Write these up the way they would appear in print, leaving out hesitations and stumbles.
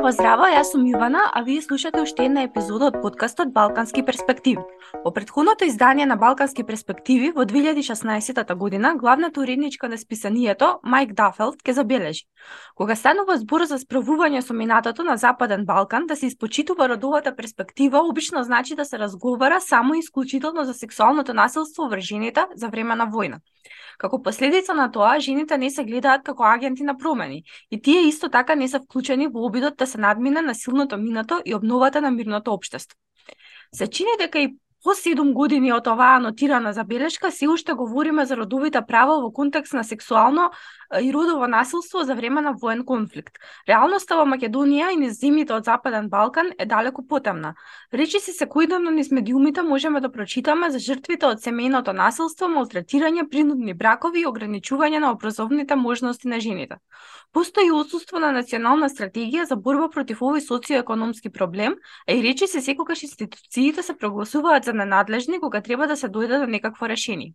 Здраво, здраво, јас сум Јувана, а вие слушате уште една епизода од подкастот Балкански перспективи. Во претходното издание на Балкански перспективи во 2016 година, главната уредничка на списанието, Мајк Дафелд, ке забележи: кога станува збор за справување со минатото на Западен Балкан, да се испочитува родовата перспектива, обично значи да се разговара само и исклучително за сексуалното насилство врз жените за време на војна. Како последица на тоа, жените не се гледаат како агенти на промени, и тие исто така не се вклучени во обидот да се надмине насилното минато и обновата на мирното општество. Се чини дека и по 7 години од оваа анотирана забелешка се уште говориме за родовите права во контекст на сексуално и родово насилство за време на воен конфликт. Реалноста во Македонија и низ земјите од Западен Балкан е далеку потемна. Речиси секојдневно низ медиумите можеме да прочитаме за жртвите од семејното насилство, малтретирање, принудни бракови и ограничување на образовните можности на жените. Постои отсуство на национална стратегија за борба против овој социоекономски проблем, а и речиси секогаш институциите се прогласуваат за ненадлежни кога треба да се дојде до некакво решение.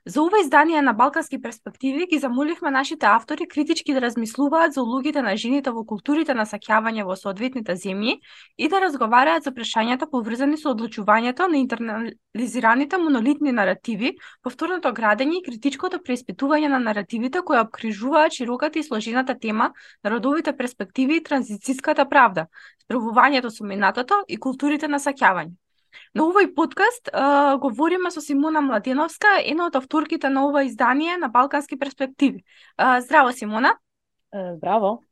За ова издание на Балкански перспективи ги замоливме нашите автори критички да размислуваат за улогите на жените во културите на саќавање во соодветните земји и да разговараат за прашањата поврзани со одлучувањето на интернализираните монолитни наративи, повторното градење и критичкото преиспитување на наративите кои обкружуваат широката и сложената тема на родовите перспективи и транзицијската правда, справувањето со минатото и културите на саќавање. На овој подкаст говориме со Симона Младеновска, една од авторките на ова издание на Балкански перспективи. Здраво, Симона. Здраво.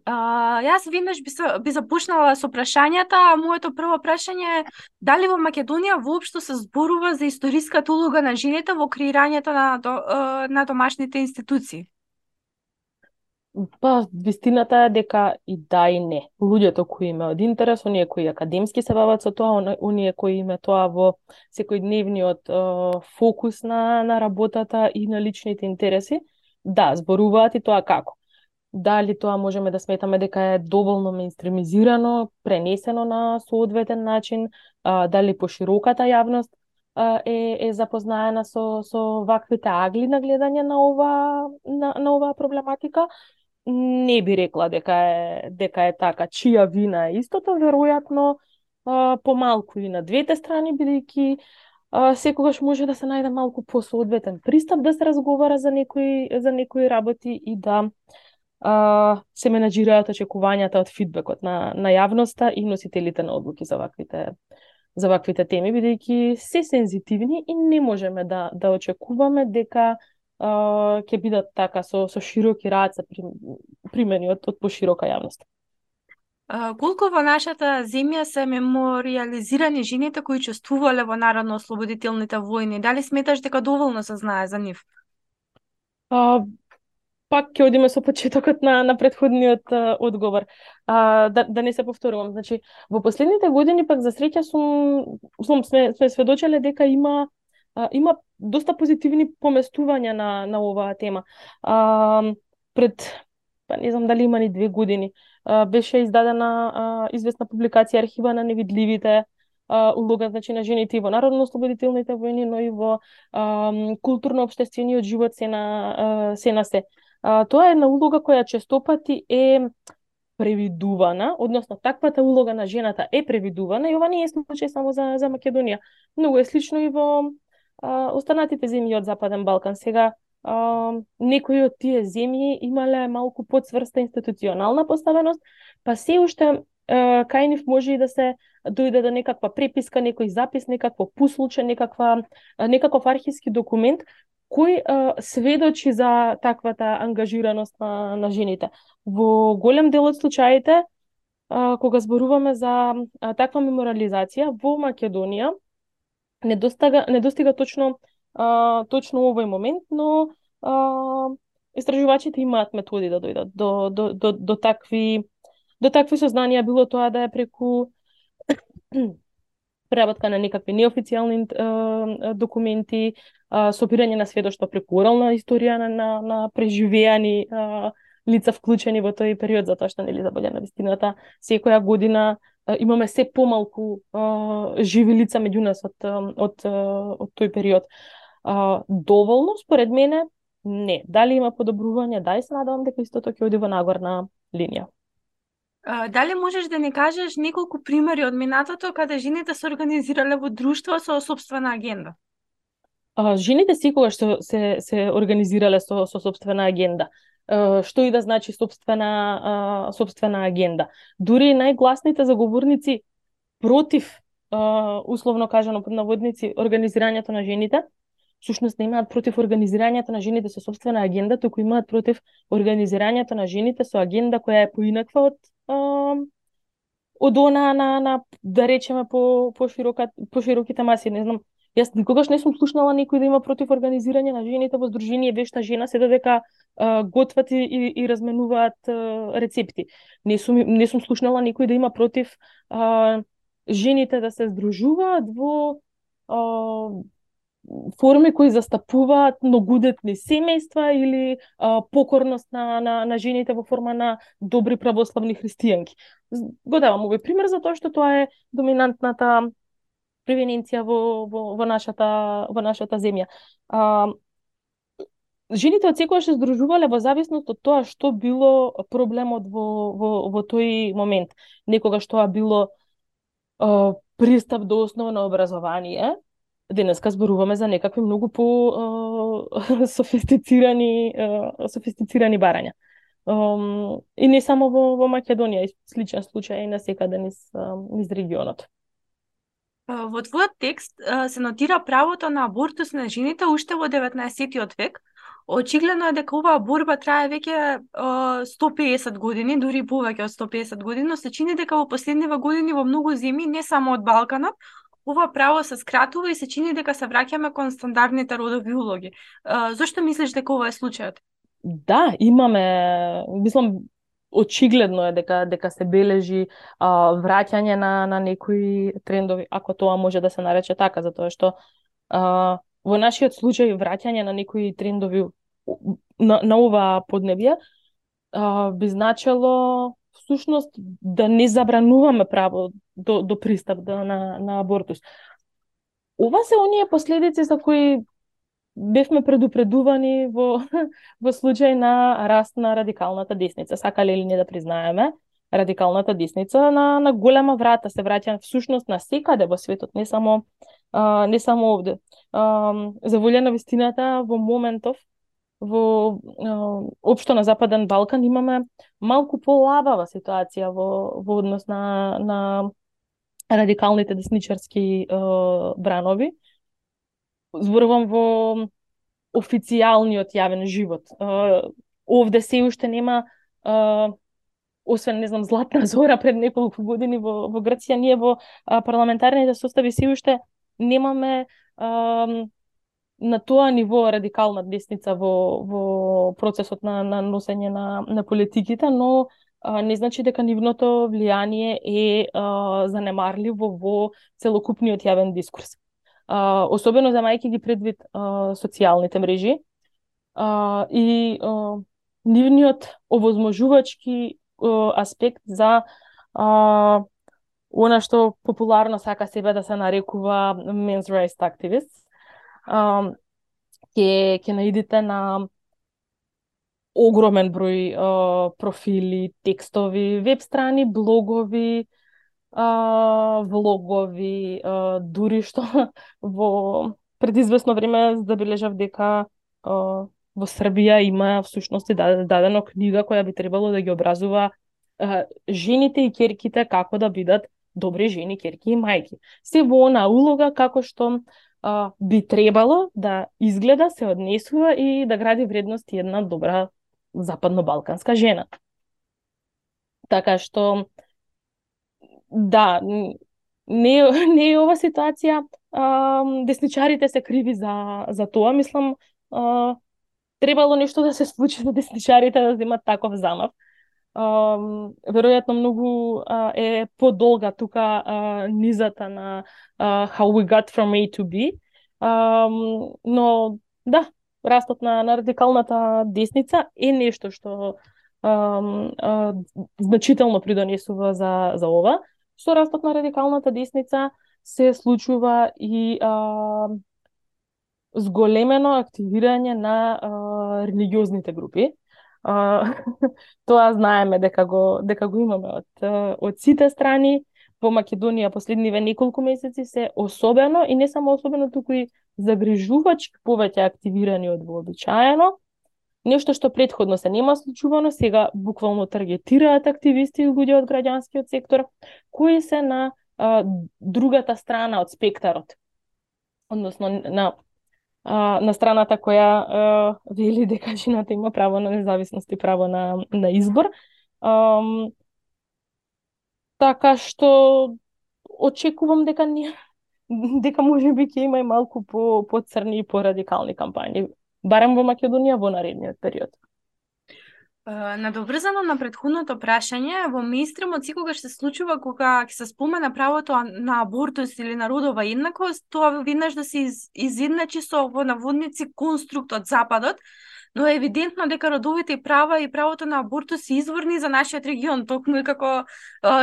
Јас веднаш би започнала со прашањата. Моето прво прашање е дали во Македонија воопшто се зборува за историската улога на жените во креирањето на домашните институции? Па, вистината е дека и да и не. Луѓето кои има од интерес, оние кои академски се бават со тоа, оние кои има тоа во секојдневниот фокус на работата и на личните интереси, да, зборуваат и тоа како. Дали тоа можеме да сметаме дека е доволно меинстримизирано, пренесено на соодветен начин, дали пошироката јавност е запознаена со ваквите агли на гледање на оваа проблематика. Не би рекла дека е така. Чија вина е истото, веројатно помалку и на двете страни, бидејќи секогаш може да се најде малку посоодветен пристап да се разговара за некои работи и да се менаџираат очекувањата од фидбекот на јавноста и носителите на одлуки за ваквите теми, бидејќи се сензитивни и не можеме да очекуваме дека ќе бидат така со широки раце примени од поширока јавност. Колку во нашата земја се мемориализирани жените кои учествувале во народно-ослободителните војни? Дали сметаш дека доволно се знае за нив? Пак ќе одиме со почетокот на претходниот одговор. Да не се повторувам. Значи, во последните години пак за среќа сме сведочеле дека има доста позитивни поместувања на оваа тема. Па не знам дали има ни 2 години, беше издадена известна публикација Архива на невидливите, улога, значи, на жените и во народно-ослободителните војни, но и во културно-општествениот живот се на се. Тоа е една улога која честопати е превидувана, односно таквата улога на жената е превидувана и ова не е случај само за Македонија. Многу е слично и во останатите земји од Западен Балкан. Сега некои од тие земји имале малку подсврста институционална поставеност, па се уште кај нив може и да се дојде до некаква преписка, некој запис, некакво пуслуче, некаков архивски документ кој сведочи за таквата ангажираност на жените. Во голем дел од случаите, кога зборуваме за таква мемориализација, во Македонија не достига точно овој момент, но истражувачите имаат методи да дојдат до такви сознанија, било тоа да е преку преработка на некакви неофицијални документи, собирање на сведоштва преку орална историја на преживеани лица вклучени во тој период, затоа што нели за боља на вистината секоја година имаме се помалку живи лица меѓу нас од тој период. Доволно, според мене, не. Дали има подобрување? Да, и се надевам дека истото ќе оди во нагорна линија. Дали можеш да ни кажеш неколку примери од минатото каде жените се организирале во друштво со собствена агенда? Жените секогаш се организирале со собствена агенда. Што и да значи собствена агенда. Дури најгласните заговорници против, условно кажано под наводници, организирањето на жените, всушност не имаат против организирањето на жените со собствена агенда, туку имаат против организирањето на жените со агенда која е поинаква од она на да речеме по широките маси. Не знам, јас никогаш не сум слушнала некој да има против организирање на жените во здружение Вешта жена, се додека готват и разменуваат рецепти. Не сум слушнала некој да има против жените да се здружуваат во форми кои застапуваат многудетни семејства или покорност на жените во форма на добри православни христијанки. Го давам овој пример затоа што тоа е доминантната превенција во нашата земја. Жените од секогаш се здружувале во зависност од тоа што било проблемот во тој момент. Некогаш тоа било пристап до основно образование. Денеска зборуваме за некакви многу по софистицирани барања. И не само во Македонија, и сличен случај и на секаде низ регионот. Во твојот текст се нотира правото на абортус на жените уште во 19 век. Очигледно е дека оваа борба трае веќе 150 години, дури повеќе од 150 години, но се чини дека во последниве години во многу земји, не само од Балканот, ова право се скратува и се чини дека се враќаме кон стандардните родови улоги. Зошто мислиш дека ова е случајот? Да, имаме, мислам, очигледно е дека се бележи враќање на некои трендови, ако тоа може да се нарече така, затоа што во нашиот случај враќање на некои трендови на ова поднебје би значело всушност да не забрануваме право до пристап на абортус. Ова се оние последици за кои бевме предупредувани во случај на раст на радикалната десница. Сакале или не да признаеме, радикалната десница на голема врата се враќа всушност на секаде во светот, не само овде. За волја на вистината, во моментов во општо на Западен Балкан имаме малку полабава ситуација во однос на радикалните десничарски бранови. Зборувам во официјалниот јавен живот. Овде се уште нема, освен, не знам, Златна Зора пред неколку години во Грција, ние во парламентарните состави се уште немаме на тоа ниво радикална десница во процесот на носење на политиките, но не значи дека нивното влијание е занемарливо во целокупниот јавен дискурс. Особено замајќи ги предвид социјалните мрежи и нивниот овозможувачки аспект за она што популарно сака себе да се нарекува men's rights activists. Ќе наидите на огромен број профили, текстови, веб страни, блогови, влогови, дури што во предизвестно време забележав дека во Србија има всушност дадено книга која би требало да ги образува жените и ќерките како да бидат добри жени, ќерки и мајки. Се во она улога како што би требало да изгледа, се однесува и да гради вредности една добра западно-балканска жена. Така што да, не е ова ситуација, десничарите се криви за тоа, мислам, требало нешто да се случи за десничарите да земат таков замав. Веројатно многу е подолга тука низата на how we got from A to B, но да, растот на радикалната десница е нешто што значително придонесува за ова. Со растот на радикалната десница се случува и зголемено активирање на религиозните групи. Тоа знаеме дека го имаме од сите страни. Во Македонија последниве неколку месеци се особено и не само особено, туку и загрижувачки повеќе активирани од вообичаено. Нешто што претходно се нема случувано, сега буквално таргетираат активисти и луѓе од граѓанскиот сектор кои се на другата страна од спектарот. Односно на страната која вели дека жената има право на независност и право на избор. Така што очекувам дека можеби ќе има и малку по црни и по радикални кампањи, барем во Македонија во наредниот период. Надоврзано на претходното прашање, во мејнстримот секогаш се случува кога ќе се спомена правото на абортус или на родова еднаквост, тоа веднаш да се изедначи со во наводници конструкт од Западот, но е евидентно дека родовите права и правото на абортус се изворни за нашиот регион, токму и како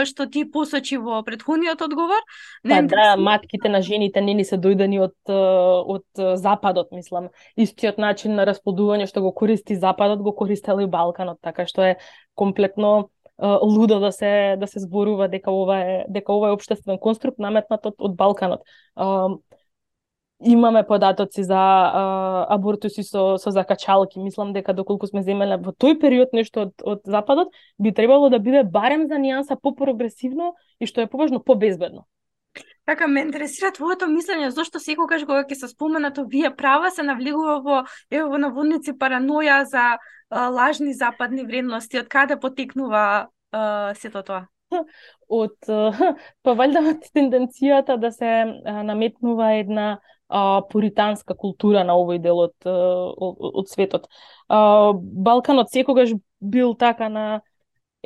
што ти посочи во претходниот одговор. Да, матките на жените не ни се дојдени од Западот, мислам. Истиот начин на расплодување што го користи Западот, го користел и Балканот, така што е комплетно лудо да се зборува дека ова е општествен конструкт наметнат од Балканот. Имаме податоци за абортуси со закачалки. Мислам дека доколку сме земеле во тој период нешто од Западот, би требало да биде барем за нијанса по-прогресивно и што е поважно по-безбедно. Така, ме интересира твоето мислење, зошто секогаш кога ќе се споменат овие права се навлегува во наводници параноја за лажни западни вредности. Од каде потекнува сето тоа? Па валјда од тенденцијата да се наметнува една пуританска култура на овој дел од светот. Балканот секогаш бил така на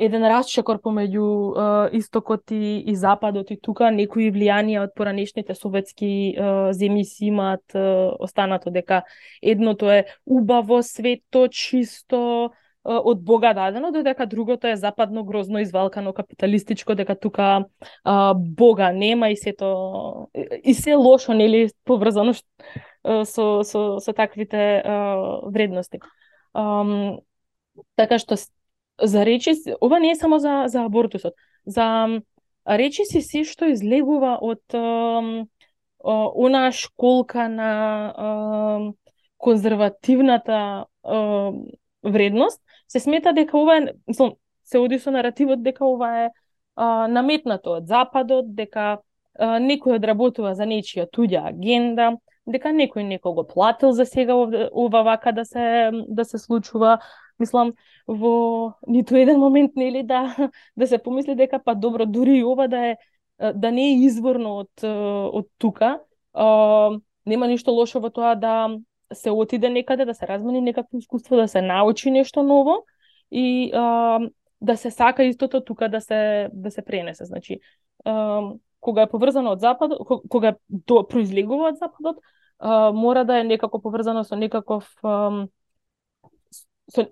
еден расчекор помеѓу истокот и западот, и тука некои влијанија од поранешните советски земји си имаат останато дека едното е убаво, свето, чисто, од Бога дадено, додека другото е западно, грозно, извалкано, капиталистичко, дека тука Бога нема и сето и се лошо, нели, поврзано со таквите вредности. Така што за речиси, ова не е само за абортусот, за речиси си што излегува од онаа школка на конзервативната вредност, се смета дека ова е, се оди со наративот дека ова е наметнато од Западот, дека некој одработува за нечија туѓа агенда, дека некој некого платил за сега ова вака да се случува. Мислам, во ниту еден момент нели да се помисли дека па добро, дури и ова да не е изворно од тука, нема ништо лошо во тоа да се отиде некаде, да се размени некакво искуство, да се научи нешто ново и да се сака истото тука да се пренесе. Значи, кога е поврзано од Западот, кога произлегува од Западот, мора да е некако поврзано со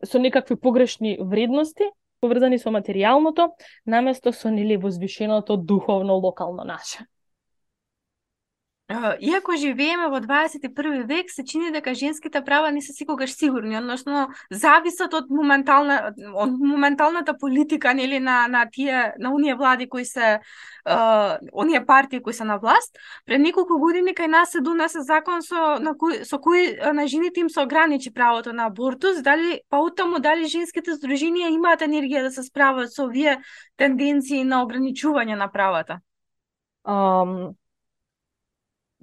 со некакви погрешни вредности, поврзани со материјалното, наместо со нели возвишеното духовно локално наше. Иако живееме во 21 век, се чини дека женските права не се секогаш сигурни, односно зависат од моменталната политика, нели, на оние влади кои се оние партии кои се на власт. Пред неколку години кај нас се донесе закон со кој на жените им се ограничи правото на абортус. Дали женските здруженија имаат енергија да се справат со овие тенденции на ограничување на правата?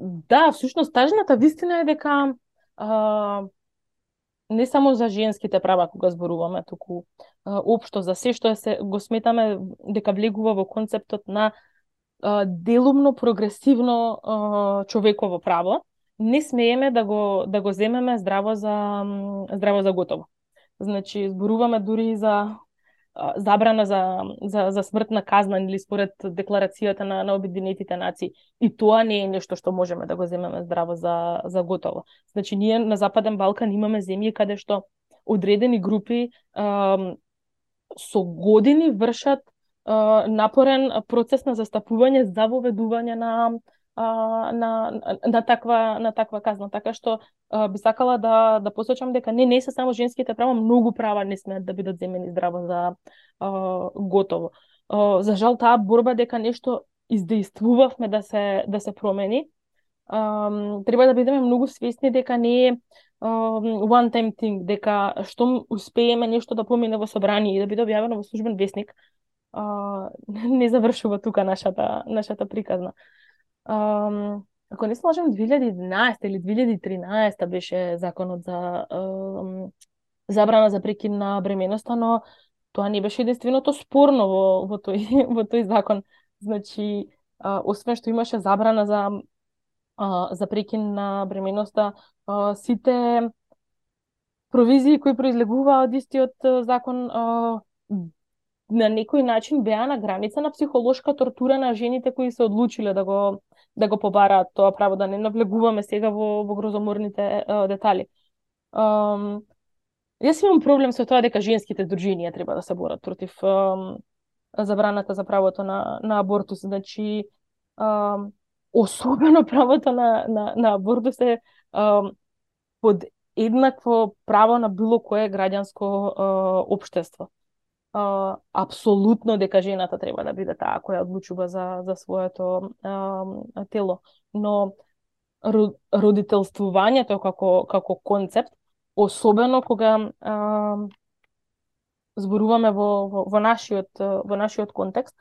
Да, всушност тажната вистина е дека не само за женските права кога зборуваме, туку општо за се што го сметаме дека влегува во концептот на делумно прогресивно човеково право, не смееме да го земеме здраво за готово. Значи зборуваме дури за забрана за смртна казна или според декларацијата на Обединетите нации. И тоа не е нешто што можеме да го земеме здраво за готово. Значи ние на Западен Балкан имаме земји каде што одредени групи со години вршат напорен процес на застапување за воведување на на таква казна. Така што би сакала да посочам дека не се само женските права, многу права не смеат да бидат земени здраво за готово. За жал таа борба дека нешто издействувавме да се промени, треба да бидеме многу свесни дека не е one time thing, дека што успееме нешто да помине во собрание и да биде објавено во службен весник, не завршува тука нашата приказна. Ако не се лажам, 2011 или 2013 беше законот за забрана за прекин на бременоста, но тоа не беше единственото спорно во тој закон. Значи, освен што имаше забрана за прекин на бременоста, сите провизии кои произлегуваа од истиот закон на некој начин беа на граница на психолошка тортура на жените кои се одлучиле да го побараат тоа право, да не навлегуваме сега во грозоморните детали. Јас имам проблем со тоа дека женските здруженија треба да се борат против забраната за правото на абортус. Значи, особено правото на абортус е под еднакво право на било кое граѓанско општество. Апсолутно дека жената треба да биде таа која одлучува за своето тело, но родителствувањето како концепт, особено кога зборуваме во нашиот контекст,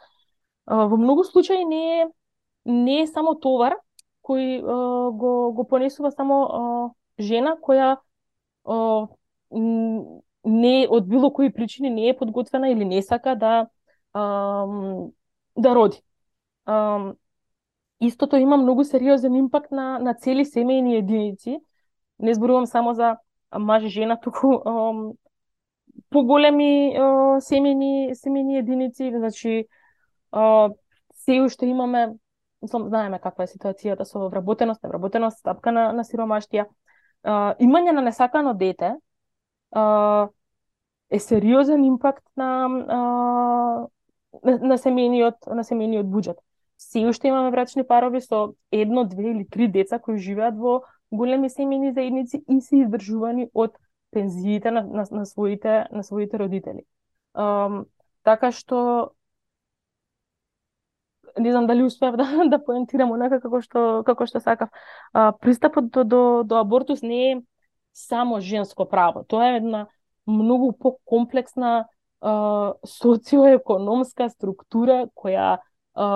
во многу случаи не е само товар кој го понесува само жена која не од било кои причини не е подготвена или не сака да роди. Истото има многу сериозен импакт на цели семејни единици. Не зборувам само за маж и жена, туку поголеми семејни единици. Значи, се уште имаме, знаеме каква е ситуацијата со вработеност, невработеност, стапка на сиромаштија. Имање на несакано дете е сериозен импакт на семејниот буџет. Се уште имаме брачни парови со 1, 2 или 3 деца кои живеат во големи семејни заедници и се издржувани од пензиите на своите родители. Така што не знам дали успеав да поентирам онака како што сакав. Пристапот до абортус не е само женско право. Тоа е една многу покомплексна социоекономска структура која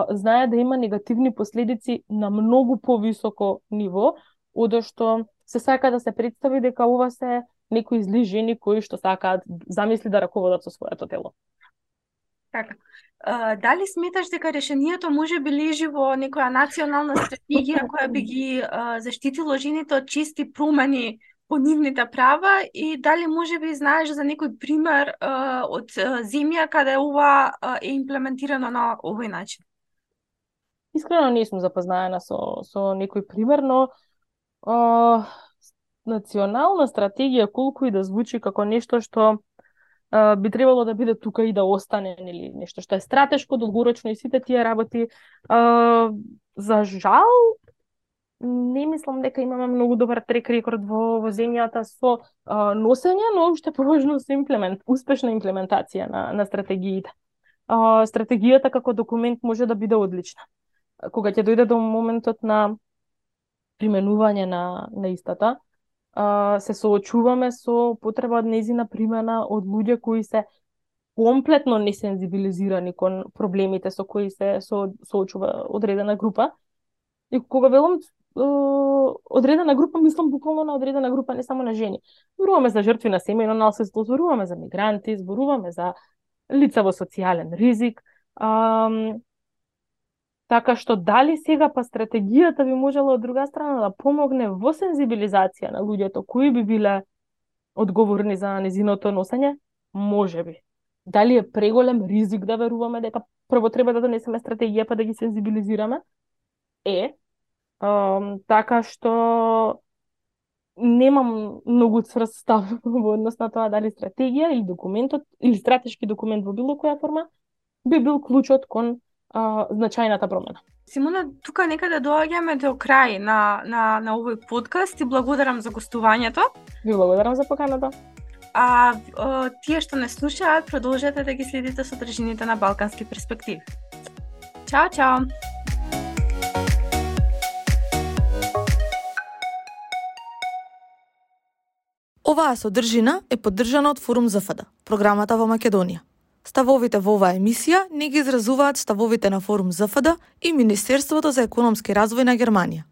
знае да има негативни последици на многу повисоко ниво, одо што се сака да се представи дека ова се некои зли жени кои што сакаат замисли да раководат со своето тело. Така. Дали сметаш дека решението може би лежи во некоја национална стратегија која би ги заштитило жените од чести промени по нивните права и дали може би знаеш за некој пример од земја каде ова е имплементирано на овој начин? Искрено не сум запознаена со некој пример, но национална стратегија колку и да звучи како нешто што би требало да биде тука и да остане, или нешто што е стратешко, долгорочно и сите тие работи, за жал не мислам дека имаме многу добар трек рекорд во земјата со носење, но уште поважно со успешна имплементација на стратегиите. Стратегијата како документ може да биде одлична. Кога ќе дојде до моментот на применување на истата, се соочуваме со потреба од нејзина примена од луѓе кои се комплетно несензибилизирани кон проблемите со кои се соочува одредена група. И кога велам одредена група, мислам буквално на одредена група, не само на жени. Зборуваме за жртви на семејно насилство, зборуваме за мигранти, зборуваме за лица во социјален ризик. Така што дали сега па стратегијата би можела од друга страна да помогне во сензибилизација на луѓето кои би биле одговорни за незиното носење? Може би. Дали е преголем ризик да веруваме дека прво треба да донесеме стратегија па да ги сензибилизираме? Така што немам многу цврст став во однос на тоа дали стратегија или документот или стратешки документ во било која форма би бил клучот кон значајната промена. Симона, тука некаде доаѓаме до крај на овој подкаст и благодарам за гостувањето. Ви благодарам за поканата. А тие што не слушаат, продолжете да ги следите содржините на Балкански перспективи. Чао, чао! Оваа содржина е поддржана од Форум ЗФД, програмата во Македонија. Ставовите во оваа емисија не ги изразуваат ставовите на Форум ЗФД и Министерството за економски развој на Германија.